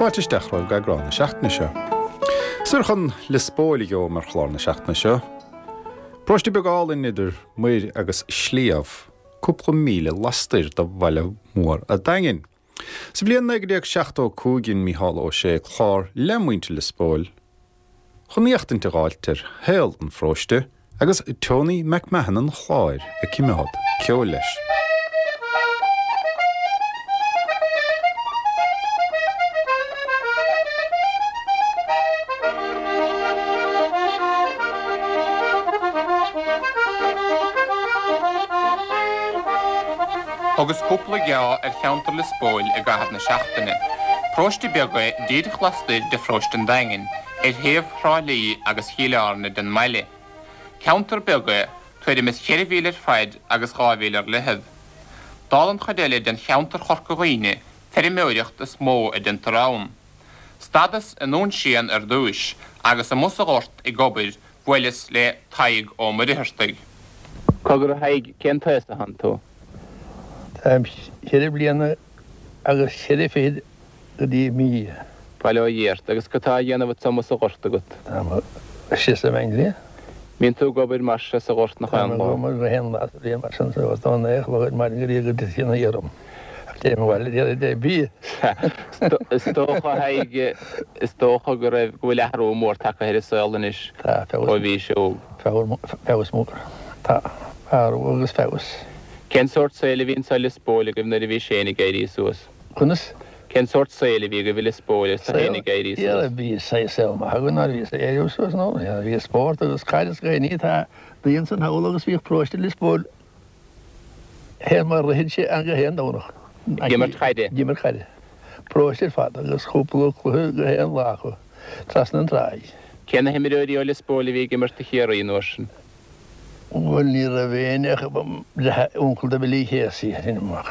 Fáilte isteach romhaibh go eagrán na seachtaine seo. Soir chun Lios Póil a gheobham ar chlár na seachtaine seo. Paróiste beag álainn idir muir agus sliabh, cúpla míle lastoir de bhaile mór a' Daingin. Sa bhliain 1975 dhein Mícheál Ó Sé clár le muintir Lios Póil chun éachtaint a dh'fháilt ar shaol an pharóiste agus Tony McMahon an Chláir ag cimeád ceoil leis. Thugas cúpla geá ar cheantar Lios Póil i gcaitheamh na seachtaine. Paróiste beag é díreach lastoir de pharóiste an Daingin, ar thaobh Thrá Lí agus Chill Airne den mbaile. Ceantar beag é, tuairim is cheithre mhíle ar faid agus 2 mhíle ar leithead. Dála an chuid eile den cheantar Chorca Dhuibhne, feirmeoireacht is mó a deintear ann. Stadas i nDún Síon ar dtúis agus amuigh sa ghort ag obair bhuaileas le Tadhg Ó Muircheartaigh. Cogar a Thaidhg, cén t-aos atánn tú? Táim cheithre bliana agus cheithre fichid go dtí mí. Bail ó Dhia ort. Agus cad tá á dhéanamh agat amuigh sa ghort agat? Táim istigh sa mBeanglí. Mbíonn tú ag obair mar seo sa ghort nach aon lá? Táim ag obair gach aon lá sa bhliain mar sin sa ghort ón naoi a chlog ar maidin go dtí go dtiteann an oíche orm. Ach téim abhaile ar deireadh bia. Is dócha, a Thaidhg, is dócha go raibh, go bhfuil athrú mór tagtha ar an saol anois Tá, feabhas. ó bhís óg. Feabhas mór. Tá, athrú agus feabhas. Cén sórt saoil a bhí anso i Lios Póil agaibh nuair a bhís féin ag éirí suas? Conas? Cén sórt saoil a bhí agaibh i Lios Póil agus tú féin ag éirí suas? Saol, bhí saol maith againn nuair a bhíos ag éirí suas, nó bhí spórt agus caid is gach ní, tá daoine ansan thall agus bhíodh paróiste Lios Póil fé mar ritheann sé ann gach aon Domhnach. Ag imirt caide? Ag imirt caide. Paróiste ar fad agus cúpla cluiche gach aon lá acu, trasna an tráigh. Cé na himreoirí ó Lios Póil a bhí ag imirt do Chiarraí an uair sin? Bhuel, ní raibh éinne ach uncail do Billy Casey, sin amach.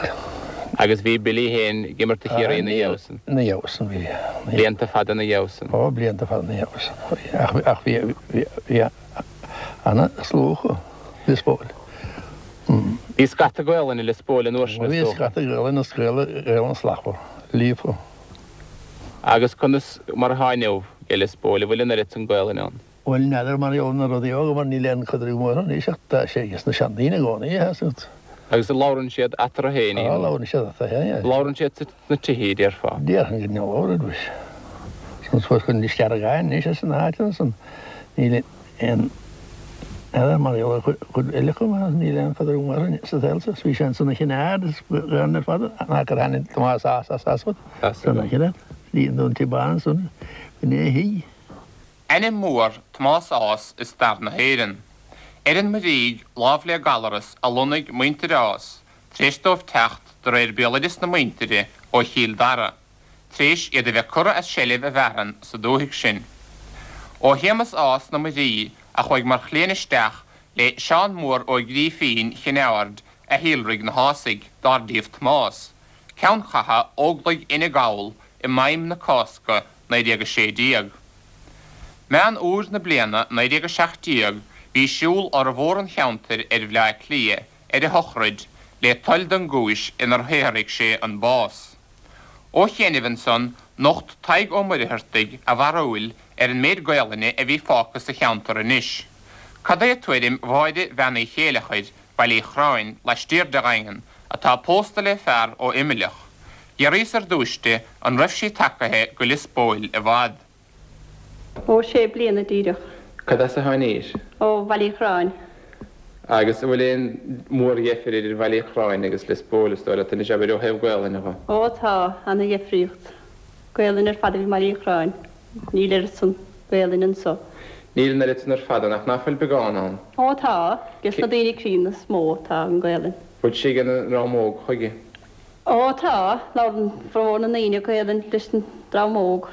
Agus bhí Billy féin ag imirt do Chiarraí ina dhiaidh san? Ina dhiaidh san, bhí. Blianta fada ina dhiaidh san? Ó, blianta fada ina dhiaidh san. Ach bhí, bhí ana-slua acu, Lios Póil. Bhí scata Gaolainne i Lios Póil an uair sin, is dócha? Bhí scata Gaolainne is Gaolainn slachtmhar, líofa. Agus conas mar atá inniu i Lios Póil, an bhfuil an oiread san Gaolainne ann? Bhuel, n'fheadar mar gheall ar na rudaí óga mar níl aon chaidreamh mór anois ach tá sé ages na seandaoine i gcónaí, tá 'fhios agat. Agus labhrann siad eatarthu féin í? Á, labhrann siad eatarthu féin, yeah. Labhrann siad sna tithe, déarfá? Déarfainn go labhrann, bhuel. San suas go Lios Deargáin anois as na háiteanna san, níl aon, n'fheadar mar gheall ar chuid eile acu mar níl aon chaidreamh mór sa saol seo. Bhí sé ansan a Chinn Aird is Gaolainn ar fad, an gur tháinig Tomás Ághas as as As. San a Chinn Aird, bhí an Dún Tí Bán ansan, bhí na thigh. Ainm mór Tomás Ághas i stair na hÉireann. Ar an Muirígh, lámh le Gallaras, a lonnaigh muintir Ághas, tar éis dóibh teacht, de réir béaloideas na muintire, ó Chill Dara, tar éis iad a bheith curtha as seilbh a bhfearann sa dúthaigh sin. Ó Shéamus Ághas na Muirí, a chuaigh mar chliaint isteach le Seán Mór Ó Grífín Chinn Aird a shíolraigh na hÁsaigh, dár díobh Tomás, ceann catha Óglaigh Fhine Gall i maidhm na Cásca 1916. Meán Fhómhair na bliana 1917 bhí siúl fhormhór an cheantair ar Bhleá Cliath ar a shochraid le toil don gcúis inar shaothraigh sé an bás. Ó chianaibh ansan nocht Tadhg Ó Muircheartaigh a bharúil ar an méid Gaolainne a bhí fágtha sa cheantar anois. Cad é tuairim Mháire Bhean Uí Chéileachair, Baile Uí Chorráin, laistiar de Dhaingean, atá pósta le fear ó Imleach? D'fhiafraíos ar dtúis di an raibh sí tagaithe go Lios Póil i bhfad. Ó, sé bliana díreach. Cad as a tháinís? Ó Bhaile Uí Chorráin. Agus an bhfuil aon mhórdheifir idir Bhaile Uí Chorráin agus Lios Póil, is dóigh leat, anois, abair, ó thaobh Gaolainne dho? Ó, tá, ana-dheifríocht. Gaolainn ar fad a bhí i mBaile Uí Chorráin. Níl oiread san Gaolainn anso. Níl an oiread san ar fad ann, ach ná fuil beagán ann? Ó, tá, ges na daoine críonna is mó atá an Gaolainn. Bhfuil sí ag an ndream óg chuige? Ó tá, labhrann formhór na ndaoine Gaelainn leis an dream óg.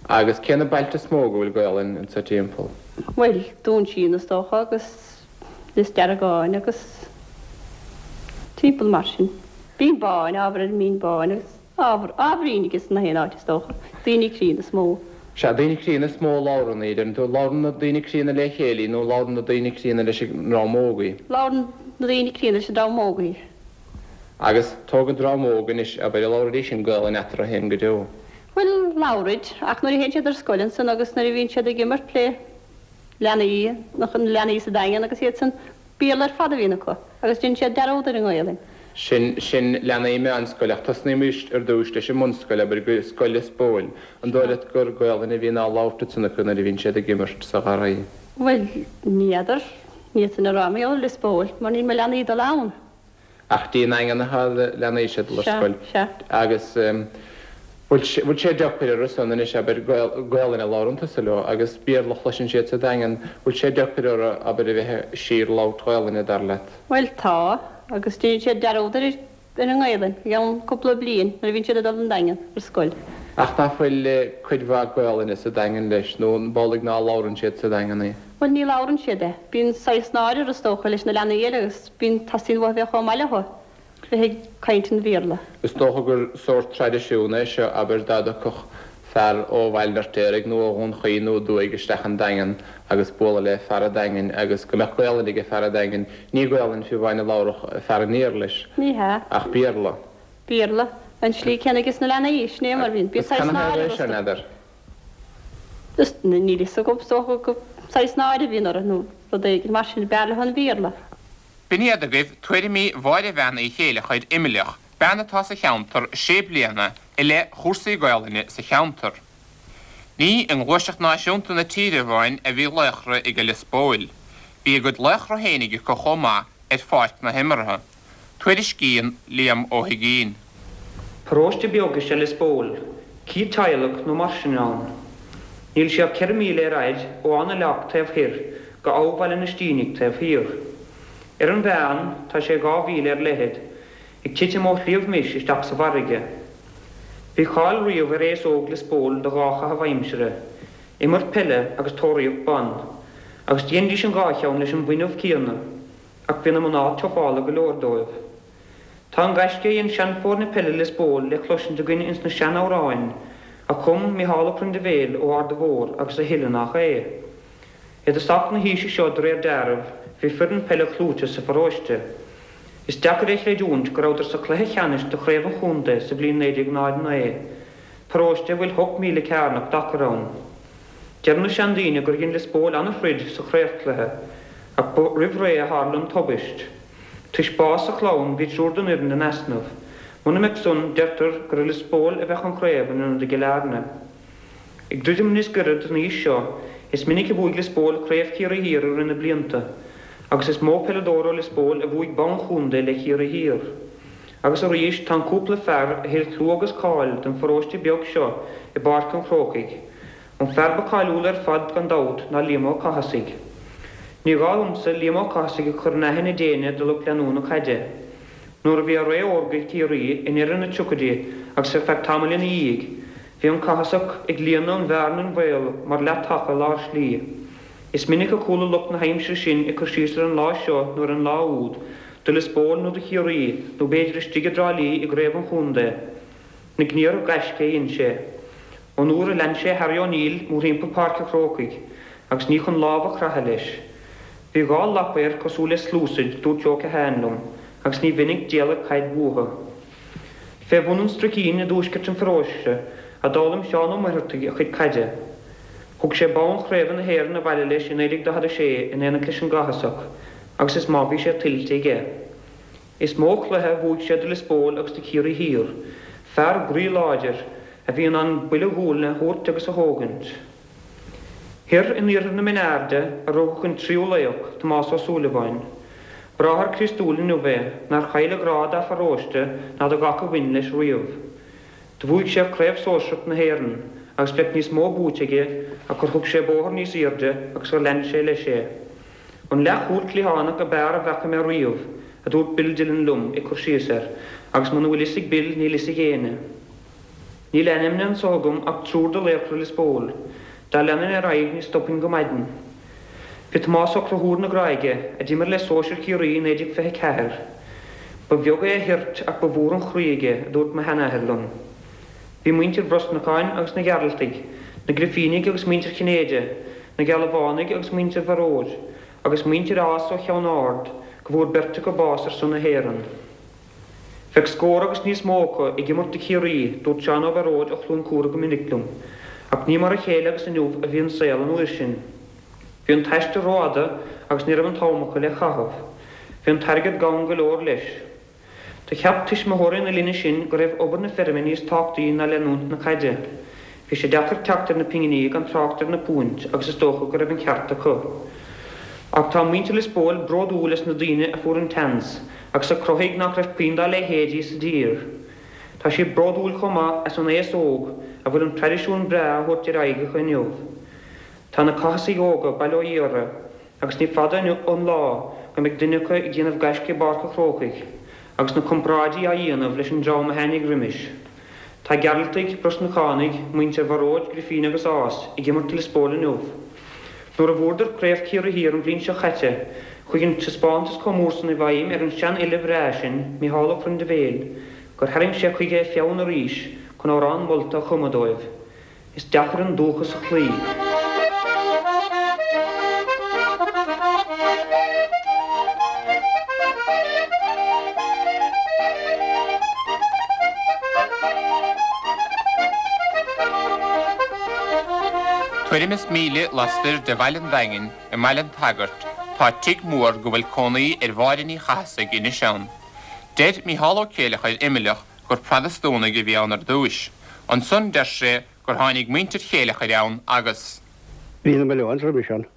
Agus cé na bailte is mó go bhfuil Gaelainn anso timpeall? Bhuel, Dún Síon is dócha agus Lios Deargáin agus timpeall mar sin. Binn Báin, ábhar ar an mBinn Báin agus ábhar, ábhairín ages na haon áit is dócha. Daoine críonna is mó. Sea, daoine críonna is mó a labhrann í, deireann tú. Labhrann na daoine críonna le chéile í nó labhrann na daoine críonna leis an ndream óg í? Labhrann na daoine críonna leis an dream óg í. Agus tóg an dream óg anois, abair, an labhraídís an Gaolainn eatarthu féin go deo? Bhuel. Labhraid, ach nuair a théann siad ar scoil ansan agus nuair a bhíonn siad ag imirt le leanaí, na leanaí sa Daingean agus iad san, Béarla ar fad a bhíonn acu agus déanann siad dearúd ar an nGaelainn. Sin, sin leanaí meánscoile ach tosnaímis ar dtúis leis an mbunscoil, abair, go Scoil Lios Póil. An dóigh leat gur Gaolainn a bhíonn á labhairt ansan acu nuair a bhíonn siad ag imirt sa gharraí? Bhuel, ní fheadar, ní fhéadfainn a rá mar gheall ar Lios Póil mar níl mo leanaí ag dul ann. Ach dtí an nDaingean atá na leanaí seo ag dul ar Sea, scoil. sea. Agus bhfuil sé, bhfuil sé deacair orthu san anois, abair, Gaolainn a labhrann tusa leo agus Béarla a chloiseann siad sa Daingean, bhfuil sé deacair orthu, abair, a bheith de shíor ag labhairt Ghaolainne, dar leat? Bhuel, tá, agus déanann siad dearúd ar ar an nGaelainn i gceann cúpla bliain nuair a bhíonn siad ag dul don Daingean ar scoil. Ach nach bhfuil cuid mhaith Gaolainne sa Daingean leis, nó an amhlaidh ná labhrann siad sa Daingean í? Bhuel, ní labhrann siad é. Bíonn saghas náire orthu, is dócha, leis na leanaí eile agus bíonn, teastaíonn uathu a bheith chomh maith leo, bheith ag caint an Bhéarla. Is dócha gur sórt traidisiún é seo, abair, dá dtiocfadh fear ó Bhaile an Fheirtéaraigh nó ó Dhún Chaoin nó aduaidh isteach an Daingean agus bualadh le fear an Daingin agus go mbeadh Gaolainn aige fear an Daingin, ní Gaolainn fiú amháin a labharfadh fear an iarthair leis, Ní hea. ach Béarla. Béarla. An tslí céanna aige sna leanaí, sin é mar bhíonn. Bíonn Agus saghas canathaobh náire é seo, orthu. n'fheadar? Is níl fhios agam, is dócha gur saghas náire a bhíonn orthu nó rud éigin mar sin, b'fhearr leo an Béarla. B'in iad agaibh tuairimí Mháire Bhean Uí Chéileachair, Imleach, bean atá sa cheantar sé bliana i leith chúrsaí Gaolainne sa cheantar. Ní i ngluaiseacht náisiúnta na tíre amháin a bhí laochra ag Lios Póil. Bhí a gcuid laochra féinig acu chomh maith ar pháirc na himeartha. Tuairiscíonn Liam Ó hUigínn. Paróiste beag is ea Lios Póil, 100 teaghlach nó mar sin ann. Níl sé ach 4 míle ar fhaid ó Áth na Leacht taobh thoir go Abha Bhaile na Stínigh taobh thiar. Ar an mheán, tá sé 2 mhíle ar leithead, ag titim ó Shliabh Mis isteach sa bhfarraige. Bhí cáil riamh ar aos óg Lios Póil do dhá chaitheamh aimsire, imirt peile agus tóraíocht ban, agus dhéanfaidís an dhá cheann leis an bhfuinneamh céanna. Ach bhí na mná tufála go leor dóibh. Tá an gaisce a dhein seanfhoirne peile Lios Póil le cloisint againn ins na sean-amhráin a chum Micheál Ó Priondaibhéil ó Arda Mhór agus a thuilleadh nach é. I dtosach na haoise seo de réir deáraimh bhí foireann peile chlúiteach sa pharóiste. Is deacair é chreidiúint go rabhadar sa chluiche cheannais de chraobh an chontae sa bhliain 1909, paróiste a bhfuil hocht míle cearnach d'achar ann. Deireann na seandaoine gur dhein Lios Póil ana-throid sa chraobhchluiche, ach ba roimh ré a tharla an tubaist. Toisc bás sa chlann bhí triúr den fhoireann in easnamh. Muna mbeadh san, deirtear gur i Lios Póil a bheadh an chraobh in ionad i gCill Airne. Ag druidim níos gaire don aois seo, is minic a bhuaigh Lios Póil Craobh Chiarraí Thiar i rith na blianta, agus is mó peileadóir ó Lios Póil a bhuaigh bonn chontae le Ciarraí Thiar. Agus arís, tá an cúpla fear a thuill clú agus cáil don pharóiste beag seo i bPáirc an Chrócaigh. An fear ba cáiliúla ar fad gan dabht ná Liam Ó Cathasaigh. Ní gá dhomsa Liam Ó Cathasaigh a chur in aithne d'éinne de lucht leanúna caide. Nuair a bhí a ré órga ag Ciarraí i ndeireadh na dtríochaidí agus ar feadh tamaill ina dhiaidh, bhí an Cathasach ag líonadh an bhearna an bhaol mar leath-taca lár slí. Is minic a chuala lucht na haimsire sin ag cur síos ar an lá seo nó ar an lá úd, do Lios Póil nó do Chiarraí, nó b'fhéidir istigh i dTrá Lí i gcraobh an chontae. Na gníomhartha gaisce a dhein sé. Ón uair a lean sé Harry O'Neill mórthimpeall Páirc an Chrócaigh, agus ní chun lámh a chroitheadh leis. Bhí dhá lapa air cosúil le sluasaid, dúirt Joe Keohane liom, agus ní mhinic d'éalaigh caid uathu. Fé bhun an Struicín i dtuaisceart an pharóiste a d'fhoghlaim Seán Ó Muircheartaigh a chuid caide. Thug sé bonn chraoibhe na hÉireann abhaile leis i 1946 in éineacht leis an gCathasach agus is maith bhí sé tuillte aige. Is mó cluiche a bhuaigh sé do Lios Póil agus do Chiarraí Thiar. Fear groí láidir, a bhí in ann buille gualainne a thabhairt agus a thógaint. Thoir in iarthar na Mine Airde a rugadh an tríú laoch, Tomás Ó Súilleabháin. Bráthair Críostúil inniu é, nár chaill a ghrá dá pharóiste ná do gach a bhain leis riamh. Do bhuaigh sé Craobh Sóisearach na hÉireann agus bheadh níos mó buaite aige ach gur thug sé bóthar níos aoirde agus gur lean sé leis é. An leathchúl cliathánach ab fhearr a bhfaca mé riamh, a dúirt Bill Dillon liom ag cur síos air, agus muna bhfuil fhios ag Bill níl fhios ag éinne. Níl ainmnithe anso agam ach triúr de laochra Lios Póil. Dá leanfainn ar aghaidh ní stopfainn go maidin. Bhí Tomás Ó Conchúir na Gráige, a d'imir le sóisir Chiarraí i 1924. Ba bheag é a thoirt ach ba mhór an chroí aige, a dúirt mo sheanathair liom. Bhí muintir Bhrosnacháin agus na Gearaltaigh, na Grifínigh agus muintir Chinnéide, na Gealbhánaigh agus muintir Bharóid, agus muintir Ághas ó Cheann Ard, go bhfuair beirt acu bás ar son na hÉireann. Bheadh scór agus níos mó acu ag imirt do Chiarraí, dúirt Seán Ó Bearóid ó Chluain Cúra go minic liom. Ach ní mar a chéile agus inniu a bhí an saol an uair sin. Bhí an t-aistear rófhada agus ní raibh an t-am acu le caitheamh. Bhí an t-airgead gann go leor leis. Do cheap tuismitheoirí na linne sin go raibh obair na feirme níos tábhachtaí ná leanúint na caide. Bhí sé deacair teacht ar na pinginí gan trácht ar na púint agus is dócha go raibh an ceart acu. Ach tá muintir Lios Póil bródúil as na daoine a fuair an tseans agus a chruthaigh nach raibh puinn dá leithéidí sa dtír. Tá siad bródúil chomh maith as an aos óg a bhfuil an traidisiún breá á thabhairt ar aghaidh acu inniu. Tá na Cathasaigh óga bail ó Dhia orthu agus ní fada an lá go mbeidh duine acu ag déanamh gaisce i bPáirc a' Chrócaigh agus na comparáidí á dhéanamh leis an dream a tháinig roimis. Tá Gearaltaigh, Brosnachánaigh, muintir Bharóid, Grifín agus Ághas ag imirt do Lios Póil inniu. Nuair a bhuadar Craobh Chiarraí Thiar an bhliain seo chaite, chuaigh an taispeántas chomh mór san i bhfeidhm ar an seanfhile bhreá sin, Micheál Ó Prindibhéil, gur tharraing sé chuige a pheann arís chun amhrán molta a chumadh dóibh. Is deacair an dúchas a chloí. Tuairim is míle lastoir de bhaile an Daingin, i mBaile an tSagairt, tá tigh mór go bhfuil cónaí ar Mháire Ní Chathasaigh anois ann. Deir Mícheál Ó Céileachair Eimhleach gur Protastúnaigh a bhí ann ar dtúis. Ansan deir sé gur tháinig muintir Chéileachair ann agus. Bhí na Mallones roimis ann.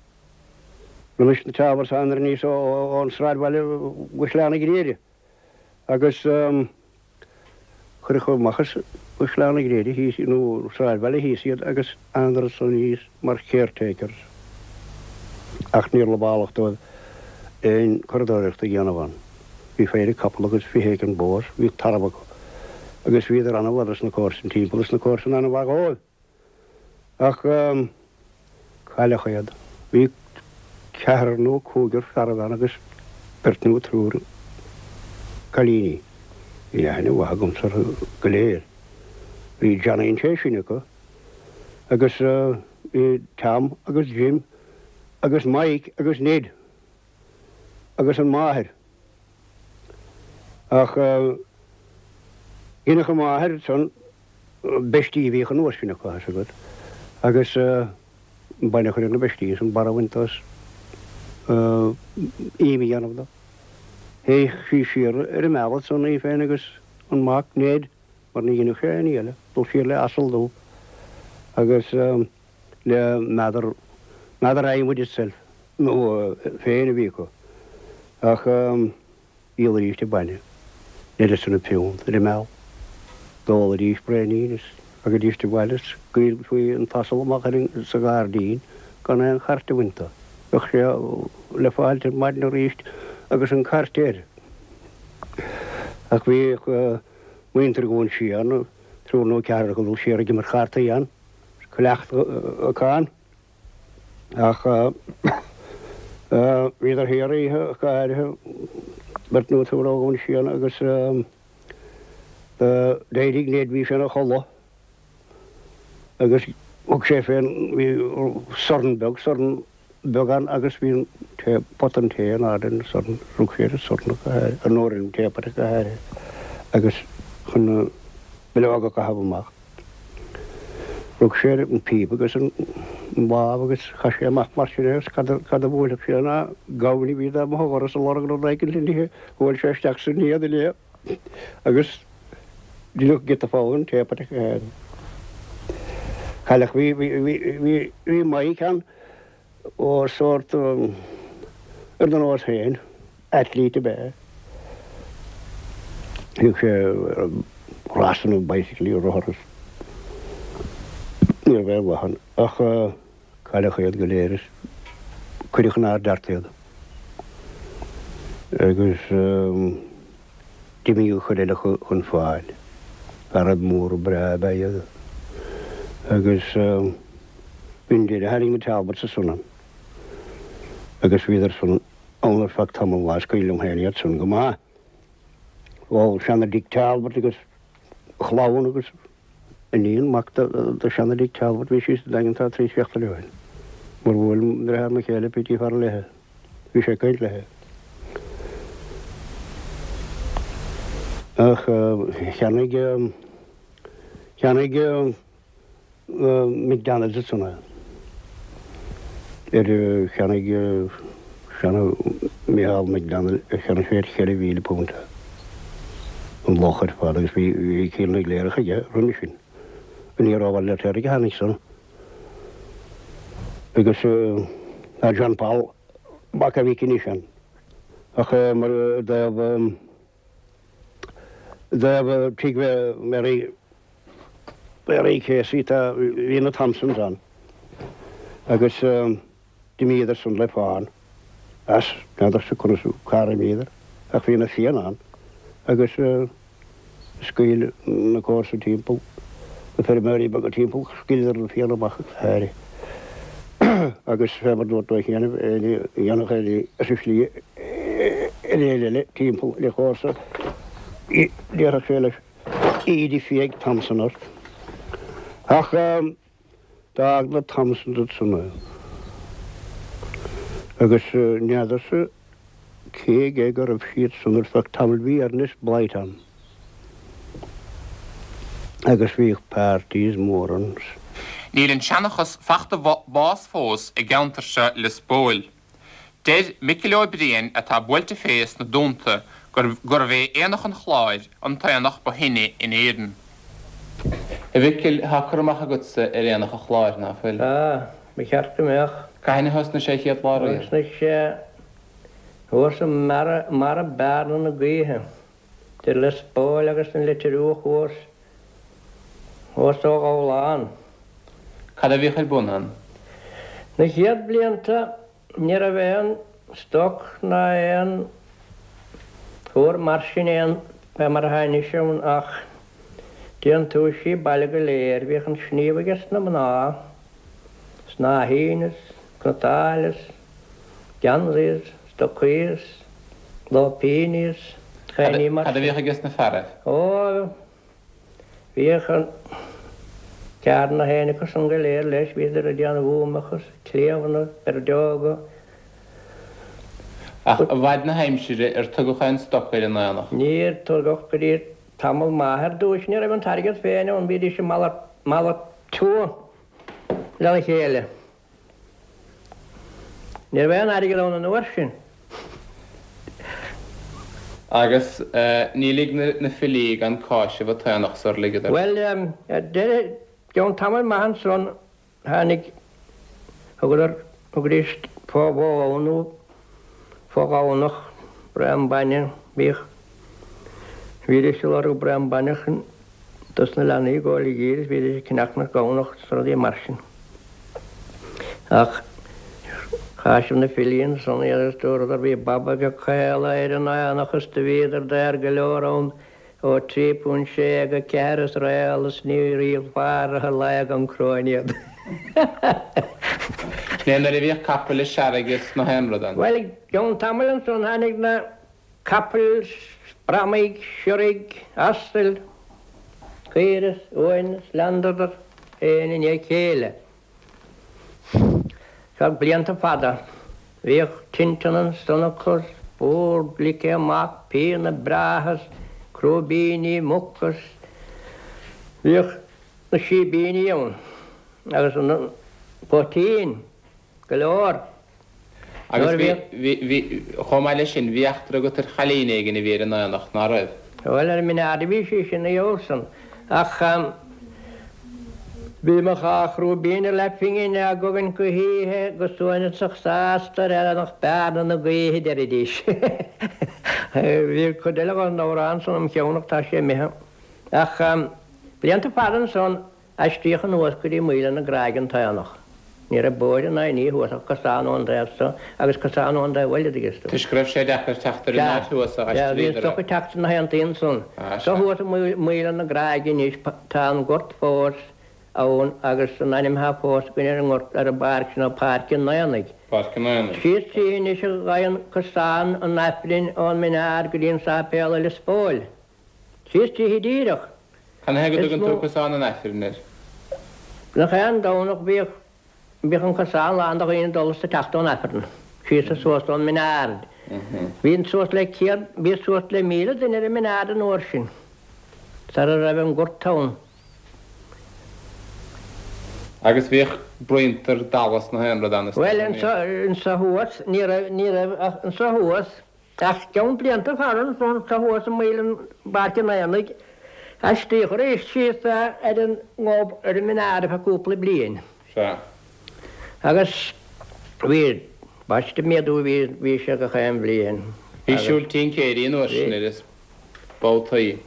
Roimis na Talbots thánadar aníos ón sráidbhaile go Sleá na Gréine agus cuireadh amach as Sleá na Gréine thíos nó sráidbhaile thíos iad agus thánadar ansan aníos mar caretakers. Ach níor lamhálach dóibh aon curadóireacht a dhéanamh ann. Bhí péire capall agus 20 éigin bó, bhí tarbh acu agus bhíodar an-mhaith dos na comharsain timpeall is na comharsain an-mhaith dhóibh. Ach cailleadh iad. Bhí ceathrar nó cúigear fearaibh ann agus beirt nó triúr cailíní. Bhí aithne mhaith agamsa orthu go léir. Bhí Johnny an té sine acu agus bhí Tom agus Jim agus Mike agus Ned. agus an mháthair. Ach dheineadh an mháthair ansan beistí a bhíodh an uair sin acu, tá 'fhios agat, agus an bainne a chur ar na beistí is an barr a bhaint dó is im a dhéanamh dó. Théadh sí siar ar an mbealach ansan í féin agus an mac, Ned, mar ní dheineadh sé aon ní eile, dul siar le asal dubh agus. le meadar, meadar adhmaid itself, nó féin a bhí acu. Ach dhíolaidís an bainne, uireasa na piúnt ar an mbealach. D'ólaidís braoinín is ragaidís abhaile is scaoilfí an t-asal amach ar an, sa ghairdín gan aon chairt a bhaint dó. Bheadh sé le fáilt ar maidin arís agus an cairt air. Ach bhíodh muintir Dhún Síon, triúr nó ceathrar acu ag dul siar ag imirt chartaí ann. Cleachtadh acu ann. Ach bhíodar thiar oíche go háirithe, beirt nó triúr ó Dhún Síon agus d'éirigh Ned, bhí sé ina chodladh agus thug sé fén, bhí sorn beag, sorn beag ann agus bhí an tae, pota an tae in airde ar an sorn, rug sé ar an sorn go háirithe, nó ar an teapot go háirithe agus chun na bileoga a chaitheamh amach. Rug sé ar an phíopa agus an lámh agus chaith sé amach mar sin é agus cad a bhuailfeadh sé ná gamhain a bhí dá mba dhoras ag lorg rud éicint le n-ithe, bhuail sé isteach san éadan é agus deineadh giota fogha den teapot go háirithe. Cailleadh, bhí, bhí, bhí, bhí, bhí Mike ann ó sórt ar do nós féin, athlete ab ea é. Bhíodh sé ar rásanna bicycle, rothar is ní raibh aon mhaith ann ach cailleadh iad go léir is cuireadh in Ard Airt iad. Agus d'imigh an chuid eile chun fáil. Fearaibh móra breá ab ea iad. Agus b'in deireadh tháinig na Talbots ansan ann. Agus bhíodar san ann ar feadh tamall lá is cuimhin liom féin iad san go maith. Ó seana Dick Talbot agus a chlann agus iníon mac do seana Dick Talbot bhí sí sa Daingean tá trí seachtaine ó shin. Mar bhuail deartháir mo chéile Petey Farrell léithe. Bhí sé ag caint léithe. Ach cheannaigh, cheannaigh McDonalds ansan é. Ar cheannaigh seana Micheál McDonald, cheannaigh sé ar £4,000 é. An loch ar fad agus bhí Cill na gCléireach aige roimhe sin. Aniar ó Bhaile Fheirtéaraigh a tháinig san. Agus tá John Paul mac a mhic anois ann. Ach mar i dtaobh i dtaobh tigh Mary Mary Casey tá bhí na Thompsons ann agus d'imíodar san le fán as n'fheadarsa conas cár imíodar ach bhí na Fianna ann agus Scaoil na comharsa timpeall, na feirmeoirí beaga timpeall, scaoileadar na Fianna amach go háirithe agus fé mar dúirt tú cheana, éinne a dhéanfadh éinne as an slí ar éinne eile timpeall le comharsa, déarfadh sé leis, íde fiaigh Thompson ort. Ach d'fhág na Thompsons ansan é agus n'fheadarsa cé aige go raibh siad san ar feadh tamaill bhí Ernest Blythe ann agus bhíodh parties mór ann. Níl an seanchas fachta bás fós i gceantar seo Lios Póil. Deir Micil Ó Briain atá buailte fé sna Dúnta gurbh é Aonach an Chláir an t-aonach ba shine in Éirinn. A Mhicil, tá cur amach agatsa ar Aonach an Chláir, ná fuil? Tá, ba cheart go mbeadh. Cathain a thosnaigh sé chéad lá riamh? Thosnaigh sé thuas i mbarra Bearna na Gaoithe, idir Lios Póil agus an Leitir Fhiodhach thuas, thuas ó Ghabhlán. Cad a bhíodh ar bun ann? Na chéad blianta ní raibh aon stoc ná aon chóir mar sin aon fé mar atá anois ann ach déantúisí baile go léir. Bhíodh an sníomh aige sna mná, snáithín is cniotáil is geansaí is stocaí is lóipíní is chaoiní mar Cad a bhíodh aige sna fearaibh? Ó, Bhíodh an ceard na héin acu san go léir leis, bhíodar ag déanamh uamach is cliabhna, peirdeoga. Ach i bhfad na haimsire ar tugadh aon stoc ar an aonach? Níor tugadh go dtí tamall maith. Ar dtúis ní raibh an t-airgead féin ann, bhídís ag malartú lena chéile. Ní raibh aon airgead ann an uair sin. Agus ní lig na filí gan cáiseamh an t-aonach sar ligeadar. Bhuel, ar deireadh, i gceann tamaill maith ansan, tháinig, thugadar, thugaidís fó bhó nó fó ghamhnach, braon bainne, bhíodh, bhídís ag lorg braon bainne chun dos na leanaí ag gabháil i dtír is bhídís ag ceannach na gamhnach is rudaí mar sin. Ach cháisigh na filí ansan iad agus dúradar bhí baba beag caol ar an aonach is do bhíodar daor go leor ann ó £3 sé go 4 is réal is ní ríomhfar a lae gan cróin iad. Sin é nuair a bhíodh capaill is searraigh is nach aon rud ann. Bhuel, i gceann tamaill ansan tháinig na. Capaill, bramaigh, siorraigh, asail, caoire is uain is leanadar aon i ndiaidh a chéile. Feadh blianta fada bhíodh tinteán ansan acu is bord ligthe amach, pianna breátha is crúibíní muc is bhíodh na síbíní ann agus an poitín go leor. Agus bhí, bhí, bhí, chomh maith leis sin, bhí eachtra agat ar chailín éigin a bhí ar an aonach, ná raibh? Bhuel, ar an Minaar a bhí sí sin, a Olson. Ach bhí mo dhá chrúibín ar leathphingin á gcogaint go hoíche go suaimhneasach sásta ar aonach Bearna na Gaoithe, deiridís. Bhí cuid eile den amhrán san im cheann ach tá sé imithe. Ach blianta fada ansan, Aistríodh anuas go dtí Maoile na Gráige an t-aonach. Ní raibh bóithre ná aon ní thuas ach cosán ón dtaobh so agus cosán ón dtaobh eile, dtuigeann tú. Toisc go raibh sé deacair teacht ar an áit thuas a Sea, bhí an aistríodar stoc é. ag teacht sna haontaí ansan. Ah, Seo sea. thuas i Maoile na Gráige anois, tá an gort fós ann agus an ainm atá fós againn ar an ngort, ar an bpáirc sin ná Páirc an Aonaigh. Páirc an Aonaigh. Síos tríthi anois a ghabhann cosán an Aifrinn ón Minaar go dtí an sáipéal i Lios Póil. Síos tríthi díreach. Canathaobh go dtugann tú cosán an Aifrinn air? Gach aon Domhnach bhíodh bhíodh an cosán lán de dhaoine ag dul is ag teacht ón Aifreann, síos is suas ón Minaar. Bhí suas le céad, bhí suas le 1,000 duine ar an mBineard an uair sin, sara raibh an Gort ann. Agus bhíodh bruíonta dalla is nach aon rud ann is dócha, Bhuel, anso, anso thuas, ní raibh, ní raibh ach anso thuas, ach ceann blianta fada anso, anso thuas i mbéal an Pháirc an Aonaigh, aistríodh arís síos é ar an nGob ar an mBineard ar feadh cúpla bliain. Sea. Agus bhí, ambaiste méadú a bhí, bhí sé gach aon bhliain. Bhí siúl tincéirí an uair sin ar is babhtaí.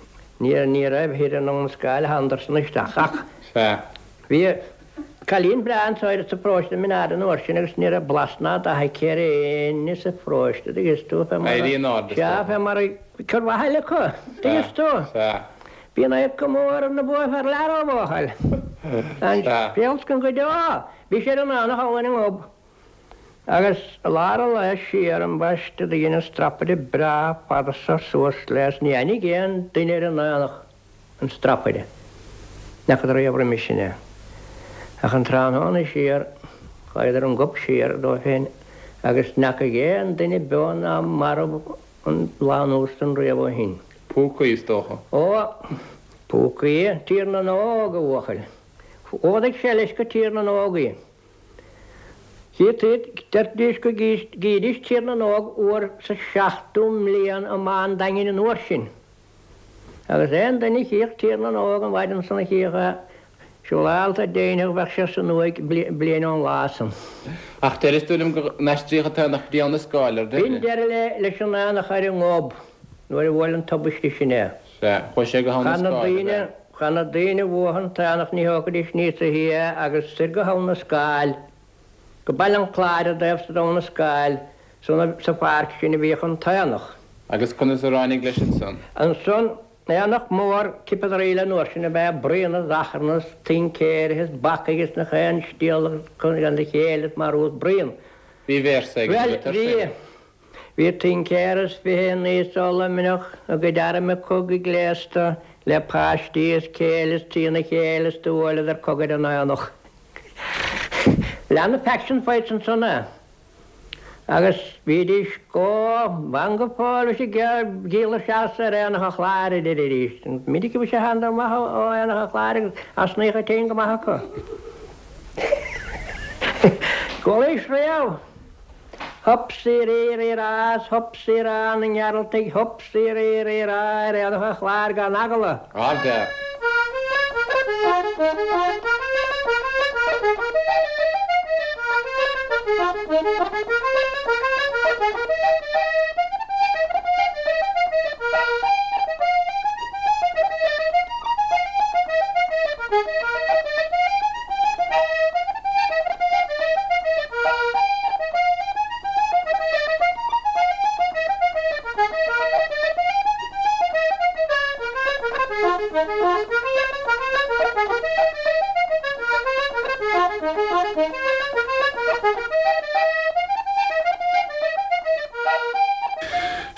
Ní, ní raibh thoir in Abha na Scáil thánadar-san isteach ach. Sea. Bhí cailín breá anso sa pharóiste i mBineard an uair sin agus ní raibh blas ná dath aici ar éinne sa pharóiste, dtuigeann tú, fé mar a. Éirí in airde, is Sea, dócha. fé mar a, cur mhaith eile acu, dtuigeann tú. Sea. Bhí an oidhre go mór ar na buafear lear ó bhuachaill. An scéal go deo, bhí sé ar an aonach thall ar an nGob. Agus i lár an lae siar ambaiste do dhein an strapaire breá fada so suas léi is ní aithnigh aon duine ar an aonach an strapaire. N'fheacadar riamh roimis sin é. Ach an tráthnóna siar chuadar an Gob siar dóibh féin agus n'fheacaidh aon duine beo ná marbh an lá anuas san riamh ó shin. Púcaí, is dócha. Ó, púcaí, Tír na nÓg, a bhuachaill. Fhódaigh sé leis go Tír na nÓg í. Deiridís go gcídís Tír na nÓg uair sa seachtú mbliain i mBá an Daingin an uair sin. Agus aon duine a chíodh Tír na nÓg an mhaidin san a chíodh é, siúrálta deimhneach bheadh sé san uaigh bliain ón lá san. Ach deireas tú liom go n-aistríodh an t-aonach go dtí Abha na Scáil ar deireadh. B'in deireadh leis an aonach ar an nGob nuair a bhuail an tubaiste sin é. Sea, chuaigh sé go hAbha na Scáil, ab ea? Cha na daoine a bhuaigh an t-aonach ní thógfaidís níos a thí é agus soir go hAbha na Scáil, go Baile an Chláir i dtaobh san d'Abha na Scáil, sa pháirc sin a bhíodh an t-aonach. Agus conas a ráinig leis ansan? Ansan, aonach mór Cipeadairí an uair sin ab ea bruíon is achrann is tincéirithe is bacaigh is nach aon stiall gan a chéile is marú is bruíon. Bhí véarsa ag an Bhuel, bhí. Bhí tincéir is 20 aníos ó Luimneach, a gcuid airm cogaidh gléasta le páistí is céile is trína chéile is do bhuaileadar cogadh ar an aonach. Lean na faction fights ansan é. Agus bhídís go ban go fóill bhí siad ag díol isteach ar Aonach an Chláir a deiridís. Minic a bhí sé thánadar amach ó Aonach an Chláir agus osnaíodh an tine go maith acu. Chualaís riamh? Hup sí rí rí rá 's hup sí rá na nGearaltaigh hup sí rí rí rá ar Aonach an Chláir gan eagla. Ardfhear.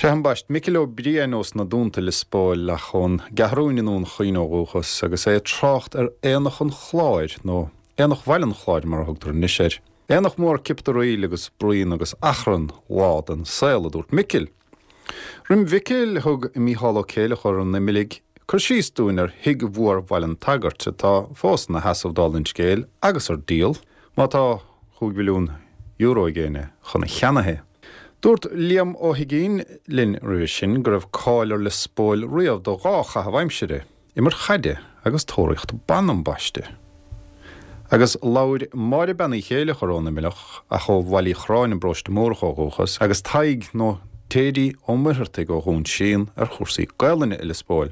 Sea, ambaist, Micil Ó Briain ós na Dúnta, Lios Póil, ach ón gCeathrúin i nDún Chaoin ó dhúchas, agus é ag trácht ar Aonach an Chláir, nó Aonach Bhaile an Chláir mar a thugtar anois air. Aonach mór cipdaraíl agus bruíon agus achrann, lá den saol, a dúirt Micil. Roim Mhicil, thug Mícheál Ó Céileachair an Imiligh cur síos dúinn ar Thigh Mhór Bhaile an tSagairt, atá fós ina sheasamh dála an scéil agus ar díol, má tá chúig mhilliún euro ag éinne chun a cheannaithe. Dúirt Liam Ó hUiginn linn roimhe sin go raibh cáil ar Lios Póil riamh do dhá chaitheamh aimsire. Imirt chaide agus tóraíocht ban ambaiste. Agus labhair Máire Bean Uí Chéileachair ón Imileach, ach ó Bhaile Uí Chorráin i bParóiste Mórdhach ó dhúchas, agus Tadhg nó Téidí Ó Muircheartaigh ó Dhún Síon ar chúrsaí Gaelainne i Lios Póil.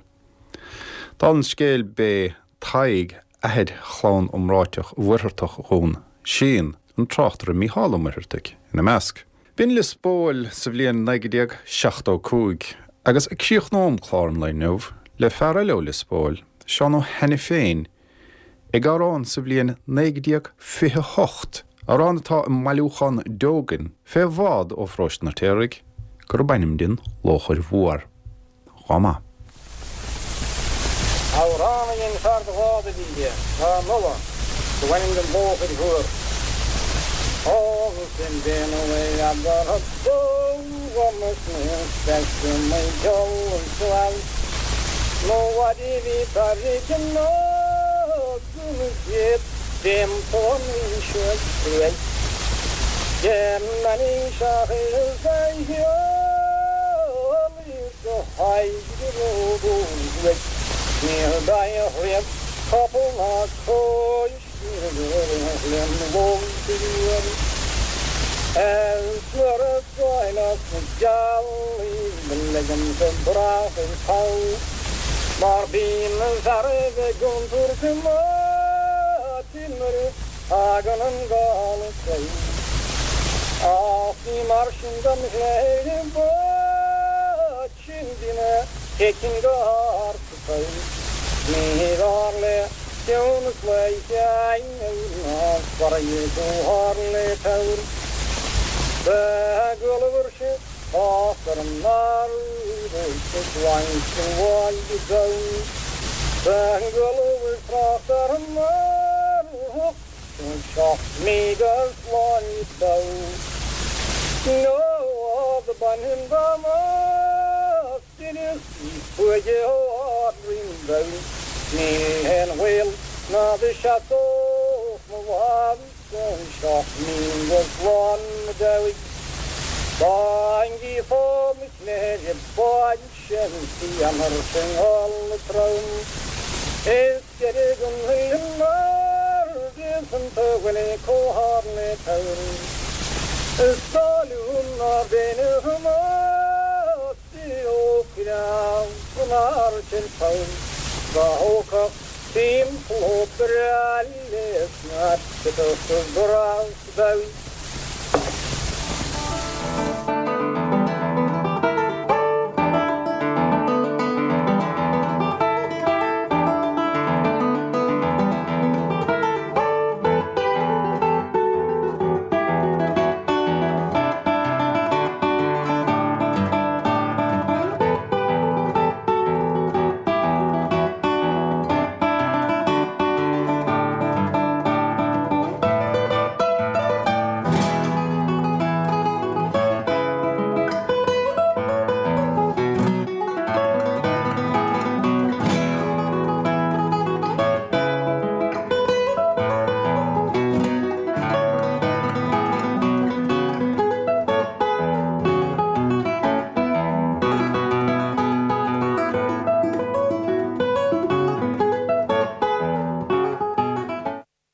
Dála an scéil b'é Tadhg athair chlann iomráiteach Mhuircheartach Dhún Síon, an tráchtaire Mícheál Ó Muircheartaigh ina measc. B'in Lios Póil sa bhliain 1975 agus críochnóm clár an lae inniu le fear eile ó Lios Póil, Seán Ó hAiniféin, ag amhrán sa bhliain 1928, amhrán atá i mbailiúchán Deogan, fé bhád ó Pharóiste an Fheirtéaraigh, gurb ainm di an Lóchair Mhór. Chomh maith. Amhrán a dhein fear de bhád a bhí tráth in Uladh, do b'ainm don Lóchair Mhór.